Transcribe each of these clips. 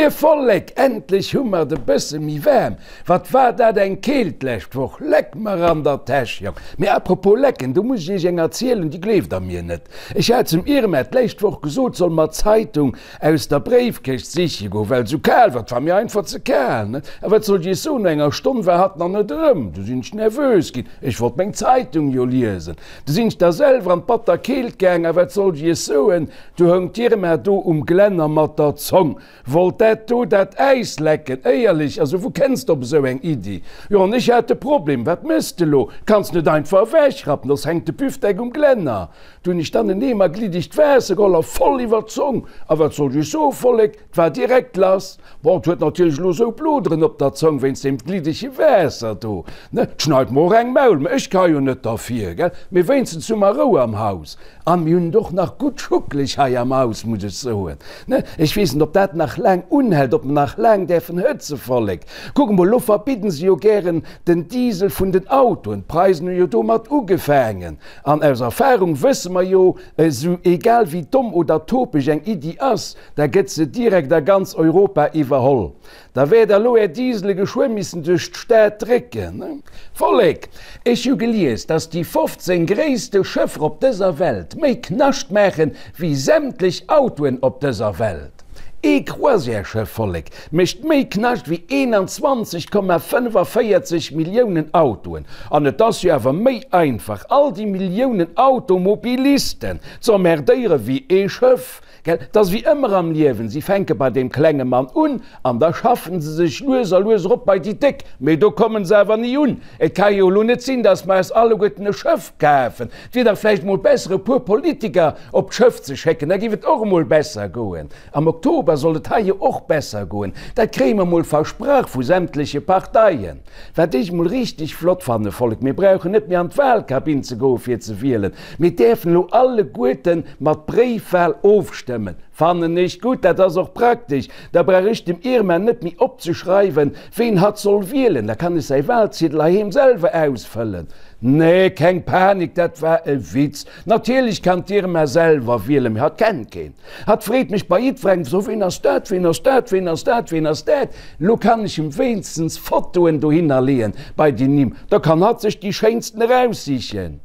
Moie Vollek, endlech hu mer et e bësse méi waarm. Wat war dat eng Keelt d'lescht Woch, leck mer an der Täsch, Jong. Mee apropos lecken, do muss ech iech eng erzielen, déi gleeft der mir net. Ech hat zum Irma d'lescht Woch gesot, soll mer d'Zeitung aus der Bréifkëscht siche goen, well esou kal war, et war mir einfach ze kal, ne? A wat soll ech iech soen, no enger Stonn war hatt nach net erëm. Du sinn ech nervös ginn, ech wollt meng Zeitung jo liesen. Du sinn ech da selwer an d'batter Keelt gaang, a wat soll ech iech soen, Du houng d'Irma do um Glänner mat der Zong, wollt dat do dat Äis lecken. Éierlech, also wou kenns de op esou eng Iddi? Jo, an ech hat de Problem, wat mëss de lo? Kanns net einfach ewechrappen, soss hänkt de Büfdeck um Glänner. Du hunn ech dann en Eemer gliddegt Waasser geholl a voll iwwer d'Zong. A wat soll ech soen, Vollek, 't war direkt lass. Bon, 't huet natierlech elo esou Bloderen op der Zong wéinst deem gliddege Waasser do, ne? 't schneit mer och eng Maul, mä ech ka jo net derfir, gell? Mee wéinstens hu mer Rou am Haus. An mir hunn et och nach gutt schuckeleg hei am Haus, muss ech soen, ne? Ech weess net, ob dat nach laang unhält, ob mer nach laang däerfen hëtze, Vollek. Kuck emol, elo verbidden se jo gären den Diesel vun den Autoen. D'Preisen hu jo domat ugefaangen. An aus Erfahrung wësse mer jo, esou egal wéi domm oder topeg eng Iddi ass, da gëtt se direkt a ganz Europa iwwerholl. Da wäert der lo är Diesele geschwë missen duerch d'Stad drécken. Vollek, ech hu gelies, dass déi 15 gréisste Schëffer op dëser Welt méi Knascht maachen wéi sämtlech Autoen op dëser Welt. Ee Croisièreschëff, Vollek, mécht méi Knascht wéi 21,45 Milliounen Autoen. An et ass jo awer méi einfach, all déi Milliounen Automobilisten z'emmerdéiere wéi ee Schëff. Gell, 't ass wéi ëmmer am Liewen, si fänke bei deem klenge Mann un an da schaffen se sech lues a lues erop bei déi Déck, mee do kommen se awer ni un. Et ka jo elo net sinn, datt mer eis alleguerten e Schëff kafen. Et wier dach vläicht emol besser, e puer Politiker op d'Schëff ze schécken, da géif et och emol besser goen. Am Oktober soll et hei jo och besser goen, dat kréie mer emol versprach vu sämtleche Parteien. Wat ech mol richteg flott fanne, Vollek, mir brauchen net méi an d'Wahlkabinn ze goe fir ze wielen, mir däerfen elo alleguerte mat Bréifwahl ofstëmmen. Fannen ech gutt, dat ass och praktesch, da brauch ech dem Irma net méi opzeschreiwen, ween hatt soll wielen, da kann ech säi Wahlziedel heiheem selwer ausfëllen. Nee, keng Panik, dat war e Witz. Natierlech kann d'Irma selwer wielen, mee hatt kennt keen. Hatt freet mech bei jiddwerengem, So, ween ass dat, ween ass dat, ween ass dat, ween ass dat? Lo kann ech em wéinstens Fotoen dohinner leeën bei déi Nimm, da kann hatt sech déi schéinsten eraussichen.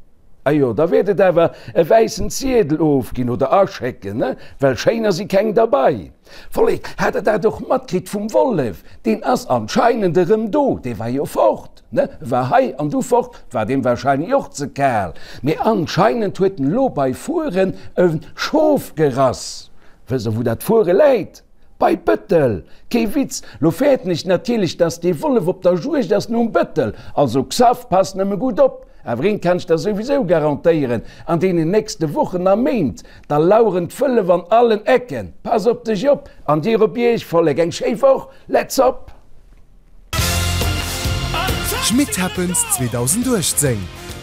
Ajo, da wäert et awer e wäissen Ziedel ofginn oder aschécken, ne? Well schéiner si keng derbei. Vollek, hat der dat och matkritt vum Wollef? Deen ass anscheinend erëm do, dee war jo fort, ne? E war hei an du fort, war deem wahrscheinlech och ze kal. Mee anscheinend huet en elo bei Furen e Schof gerass. Wësst der wou dat Fuere läit? Bei Bëttel! Kee Witz, lo fäerten ech natierlech, dass dee Wollef op der Juegd ass nom Bëttel. Also Xaph, pass nëmme gutt op! Awer eent kann ech der souwisou garantéieren, an deenen nächste Wochen a Méint, da laueren d'Wëllef an allen Ecken. Pass op dech op, an dir op iech, Vollek! Eng schéi Woch! Let's op! Schmitt Happens 2018,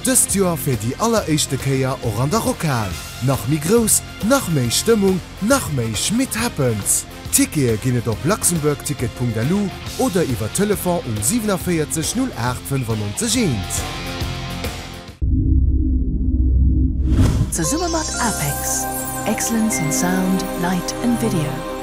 dëst Joer fir déi alleréischte Kéier och an der Rockhal. Nach méi grouss, nach méi Stëmmung, nach méi Schmitt Happens! Tickete ginn et op luxembourgticket.lu oder iwwer Telefon um 47 08 95 1. Zesumme mat APEX, Excellence in Sound, Light and Video.